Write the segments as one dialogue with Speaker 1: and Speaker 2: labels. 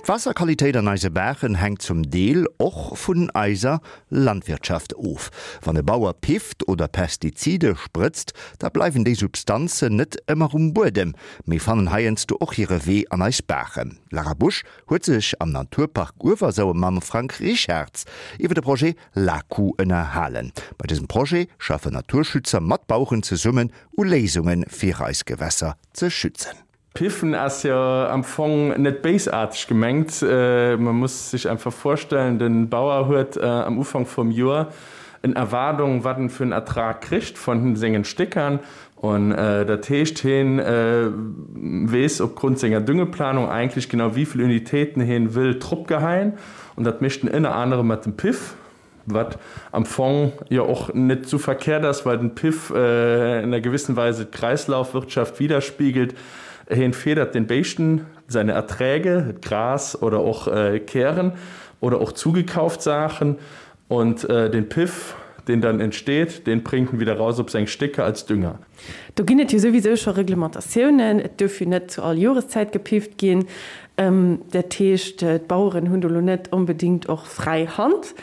Speaker 1: D'Waasserqualitéit an eise Baachen hänkt zum Deel och vun eiser Landwirtschaft of. Wann e Bauer pifft oder Pestizide sprëtzt, da bleiwen déi Substanzen net ëmmer um Buedem, mee fannen heiansdo och hire Wee an eis Baachen. D'Lara Busch huet sech am Naturpark Uewersauer mam Frank Richarz iwwer de Projet LAKU ënnerhalen. Bei dësem Projet schaffen Naturschützer mat Baueren zesummen u Léisunge fir eis Gewässer ze schützen.
Speaker 2: Piffen ass jo am Fong net béisaarteg gemengt. Man muss sech einfach vorstellen, den Bauer huet am Ufank vum Joer en Erwaardung wat en fir en Ertrag kricht von sengen Stéckern an dat heescht heen weess opgrund senger Düngeplanung eigentlich genau wievill Unitéiten heen wëll drop geheien an dat mécht en ënner anerem mat dem Piff. Wat am Fong jo och net sou verkehrt ass, well den Piff in einer gewissen Weise d'Kreislaufwirtschaft widerspiegelt. Heen federt den Béischten seine Erträge, Gras oder och Kären oder och zugekauft Saachen, und den Piff, den dann entsteht, den bringt en wieder raus op seng Stécker als Dünger.
Speaker 3: Do ginn et jo souwisou scho Reglementatiounen. Et duerf jo net zu all Joreszäit gepifft ginn. Dat heescht, d'Baueren hunn do lo net onbedéngt och fräi Hand.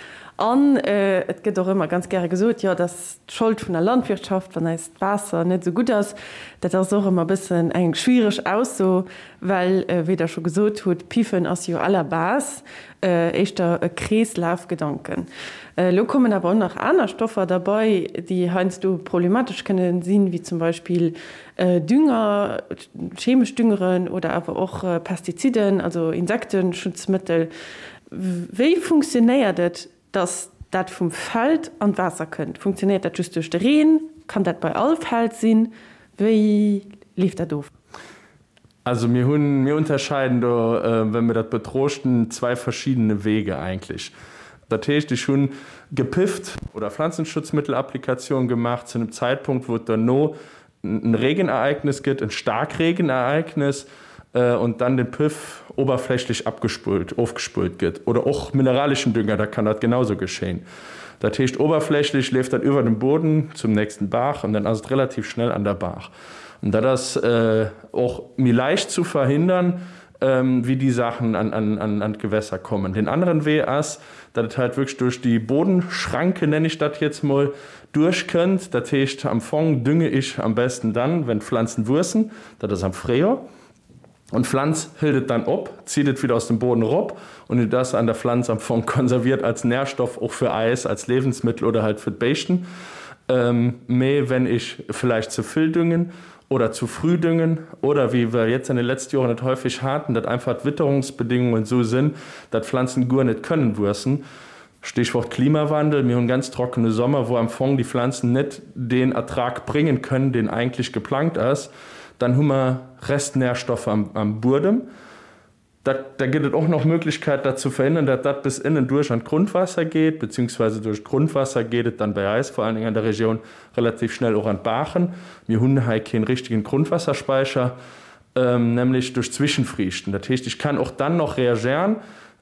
Speaker 3: An et gëtt och ëmmer ganz gäre gesot, jo, et ass d'Schold vun der Landwirtschaft, wann eist Waasser net esou gutt ass. Dat ass och ëmmer e bëssen eng schwiereg Ausso, well, wéi Der scho gesot hutt, Piffen ass jo à la base éischter e Kreeslafgedanken. Elo kommen awer och nach aner Stoffer derbei, déi heiansdo problematesch kënne sinn, wéi zum Beispill Dünger, chemesch Düngeren oder awer och Pestiziden, also Insekteschutzmëttel. Wéi funktionéiert et, dass dat vum Feld an d'Waasser kënnt? Funktionéiert dat just duerch de Reen? Kann dat bei all Feld sinn? Wéi leeft dat of?
Speaker 2: Also mir hunn, mir unterscheiden do, wenn mir dat betrochten, zwei verschiedene Wege eigentlich. Dat heescht, ech hunn gepifft oder Pflanzenschutzmittelapplikation gemaach zu einem Zeitpunkt, wou et derno en Regenereignis gëtt, en Starkregenereignis, und dann den Piff oberflächlich abgespult, ofgespult gëtt. Oder och mineralischen Dünger, da kann dat genauso geschehen. Dat heescht, oberflächlich leeft dat iwwer dem Boden zum nächsten Baach und dann ass et relativ schnell an der Baach. An dat ass och méi leicht zu verhindern, wéi déi Saachen an d'Gewässer kommen. Deen aneren Wee ass, datt et halt wierklech duerch déi Bodenschranke, nenne ech dat jetzt mol, duerchkënnt. Dat heescht, am Fong dünge ich am besten dann, wenn d'Pflanzen wuessen, dat ass am Fréijoer. Und d'Pflanz hëlt et dann op, zieht et wieder aus dem Boden erop und et ass an der Pflanz am Fong konserviert als Nährstoff och fir eis als Lebensmittel oder halt fir d'Béischten. Mee wenn ich vielleicht ze vill düngen oder zu früh düngen oder wéi wir jetzt an den letzten Joren et häufig haten, datt einfach d'Witterungsbedingungen esou sinn, datt Pflanzen guer net kënnen wuessen, Stichwort Klimawandel, mir hunn ganz trockene Sommer, wou am Fong déi Pflanzen net deen Ertrag bréngen kënnen, deen eigentlech geplangt ass, dann hu mer Restnährstoffe am Buedem. Da gëtt et och nach Möglichkeit, dat ze verhindern, datt dat bis ënnen duerch an d'Grundwasser geet, beziehungsweise duerch d'Grundwasser geet et dann bei eis, vor allen Dingen an der Regioun, relativ schnell och an d'Baachen. Mir hunn hei keen richtigen Grundwasserspeicher, nämlech duerch Zwischenfriichten. Dat heescht, ich kann och dann noch reagieren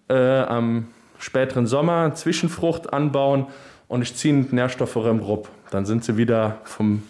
Speaker 2: am späteren Sommer, Zwischenfrucht anbauen und ich ziehen d'Nährstoffe erëm rop. Dann sind se wieder vom,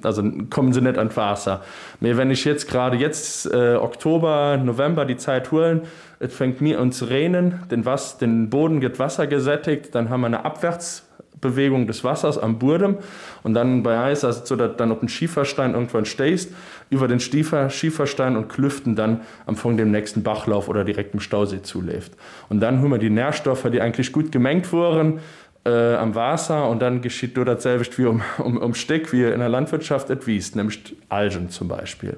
Speaker 2: also kommen se net an d'Waasser. Mee wenn ich jetzt gerade jetzt Oktober, November die Zäit huelen, et fänkt mir un ze reenen, den Wass, den Boden gëtt wassergesättigt, dann hu mer eine Abwärtsbewegung des Wassers am Buedem und dann bei eis ass et sou, datt et dann op den Schieferstein irgendwann stéisst, iwwer den Stiefer, Schieferstein und Klüften dann am Fong dem nächsten Bachlauf oder direkt dem Stausee zuleeft. Und dann hu mer déi Nährstoffer, déi eigentlich gutt gemengt woren, am Waasser. Und dann geschitt do dat selwecht wéi um Stéck, wéi in der Landwirtschaft, et wiisst, nämlech d'Algen zum Beispill.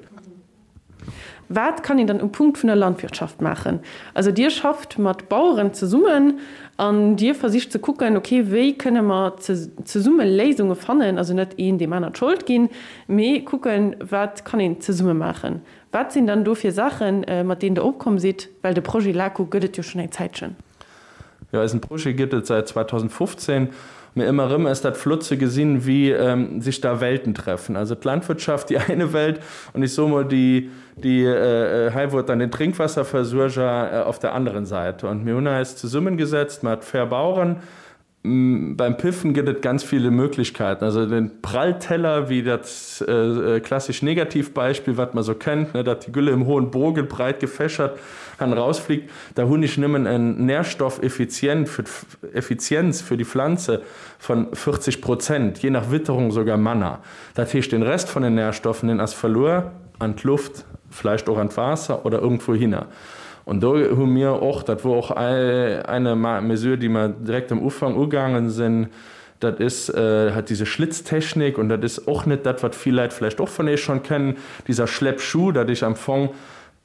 Speaker 3: Wat kann een dann um Punkt vun der Landwirtschaft maachen? Also Dir schafft mat Baueren zesummen an Dir versicht ze kucken, okay, wéi kënne mer zesumme Léisunge fannen, also net een deem aner d'Schold ginn, mee kucken, wat kann een zesumme maachen. Wat sinn dann do fir Saachen, mat deenen Der opkomm sidd? Well de Projet LACO gëtt et jo schonn eng Zäitchen.
Speaker 2: Jo, eisen Projet gëtt et säit 2015. Mee ëmmer erëm ass dat flott ze gesinn, wéi sech da Welten treffen. Also d'Landwirtschaft, déi eine Welt, und ich soe mol déi, déi hei wou et dann den Trinkwasserversuerger auf der anderen Seite. Und mir hunn eis zesummengesetzt mat Fair Baueren. Beim Piffen gëtt et ganz viele Möglichkeiten. Also den Prallteller, wéi dat klassisch Negativbeispiel, wat man sou kennt, ne, dat die Gülle im hohen Bogen breit gefächert han rausfliegt, da hunn ech nëmmen en Nährstoffeffizient fir d'Effizienz fir die Pflanze von 40 Prozent, je nach Witterung sogar manner. Dat heescht, den Rest von den Nährstoffen, den ass verluer an d'Luft, vläicht och an d'Waasser oder irgendwouhinner. Und do hu mir och, dat wor och eine Mesure, déi mer direkt am Ufank ugaangen sinn, dat ist halt diese Schlitztechnik, und dat ist och net dat, wat vill Leit vläicht och vun Iech schonn kennen, dieser Schleppschuh, dat ech am Fong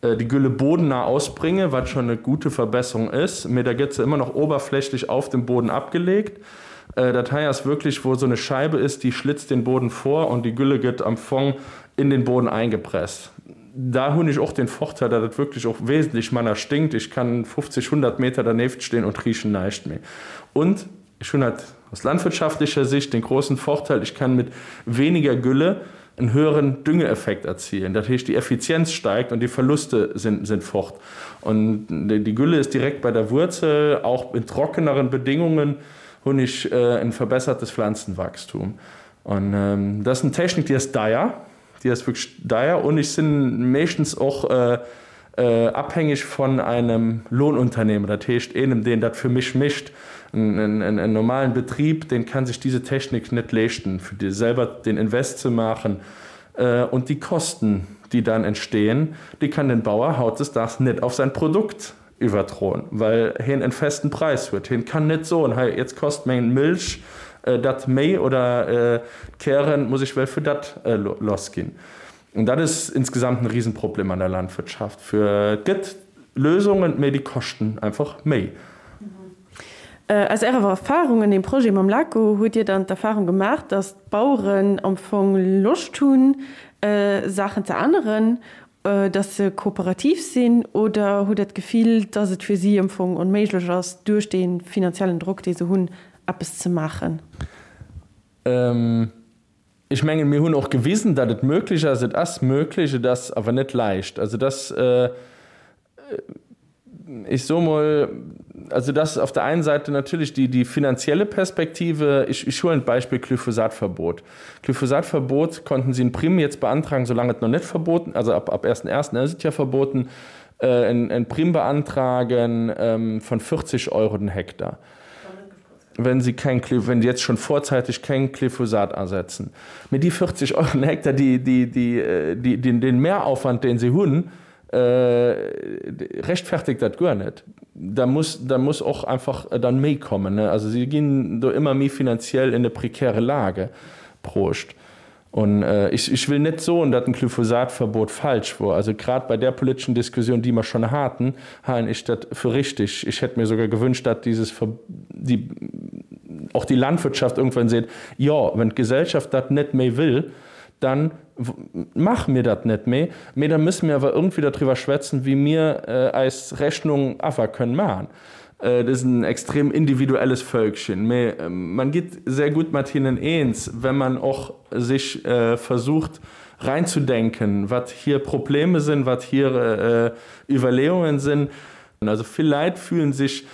Speaker 2: déi Gülle bodennah ausbringe, wat schon eine gute Verbesserung ist, mee da gëtt se immer noch oberflächlich auf dem Boden abgelegt. Dat hei ass wirklich, wou esou eine Scheibe ist, déi schlitzt den Boden vor und déi Gülle gëtt am Fong in den Boden eingepresst. Da hunn ech och den Vorteil, dat et wirklich och wesentlech manner stinkt. Ech kann 50, 100 Meter dernieft stehen und riechen näischt méi. Und ech hunn halt aus landwirtschaftlicher Sicht den großen Vorteil, ich kann mit weniger Gülle en höheren Düngeeffekt erzielen. Dat heescht, die Effizienz steigt und die Verluste sind, sind fort. Und die Gülle ist direkt bei der Wurzel, auch in trockeneren Bedingungen hunn ech en verbessertes Pflanzenwachstum. Und dat ass en Technik, déi ass deier. Déi ass wierklech deier und ech sinn meeschtens och abhängig von einem Lohnunternehmer, dat heescht eenem deen dat fir mech mécht. En normalen Betrieb, deen kann sech diese Technik net leeschten, fir selber den Invest ze maachen und die Kosten, déi dann entstehen, déi kann den Bauer hautdesdaags net auf sein Produkt iwwerdroen, well hien en festen Präis huet. Hien kann net soen, hei jetzt kost meng Milch dat méi oder d'Kären muss ech well fir dat lass ginn. An dat ass insgesamt en Riesenproblem an der Landwirtschaft. Fir et gëtt Lösungen, mee déi koschten einfach méi.
Speaker 3: Aus Ärer Erfahrung an deem Projet mam LACO, hutt Dir dann d'Erfahrung gemaach, datt d'Baueren am Fong Loscht hunn, Saachen ze änneren Dass se kooperativ sinn oder hutt Der d'Gefill, dass et fir si am Fong onméiglech ass, duerch dee finanziellen Drock, dee se hunn, eppes ze maachen?
Speaker 2: Ech mengen, mir hunn och gewisen, datt et möglich ass. Et ass möglich, et ass awer net leicht. Also dass, ech soe mol, also dass auf der einen Seite natürlich die, die finanzielle Perspektive, ich, ich huelen d'Beispill Glyphosatverbot. Glyphosatverbot konnten sie in Primm jetzt beantragen, solange et noch net verboten, also ab, ab ersten ersten ass et ja verboten, en, en Primm beantragen von 40 Euro den Hektar, wenn sie kein, wenn sie jetzt schon vorzeitig kein Glyphosat asetzen. Mee déi 40 Euro den Hektar, déi, déi, déi, déi, den, den Mehraufwand, deen se hunn, Rechtfertigt dat guer net. Da muss, da muss och einfach dann méi kommen. Also si ginn do ëmmer méi finanziell in eine prekäre Lage bruecht. Und ech, ech will net soen, datt en Glyphosatverbot falsch wor. Also grad bei där politeschen Diskussioun, déi mer schonn haten, halen ech dat fir richtig. Ich hätt mir sogar gewünscht, datt dieses Ver, die, och die Landwirtschaft irgendwann seet, jo, wenn d'Gesellschaft dat net méi wëll, dann maache mir dat net méi, mee da müsse mir awer irgendwie darüber schwätzen, wéi mir eis Rechnung awer kënnen maachen. Et ass en extrem individuelles Völkchen, mee man gitt sehr gut mat hinnen eens, wenn man och sich versucht reinzudenken, wat hir Probleme sinn, wat hir Iwwerleeungen sinn. Also vill Läit fühlen sich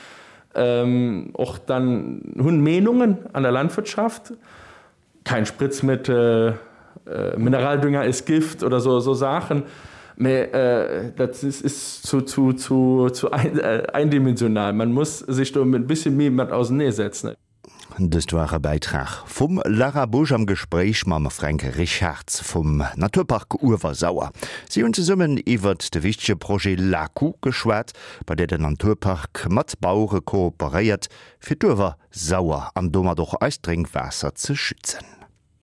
Speaker 2: och dann, hunn Meenungen an der Landwirtschaft, Kein Spritzmittel, Mineraldünger ist Gift oder so so Saachen, mee dat ist zu zu zu zu eindimensional. Man muss sich do e bisschen méi mat auseneesetzen.
Speaker 1: Dëst war e Bäitrag vum Lara Busch am Gespréich mam Fränk Richarz vum Naturpark Uewersauer. Si hunn zesummen iwwert de wichtege Projet LAKU geschwat, bei där den Naturpark mat Bauere kooperéiert, fir d'Uewersauer an domat och eist Drénkwaasser ze schützen.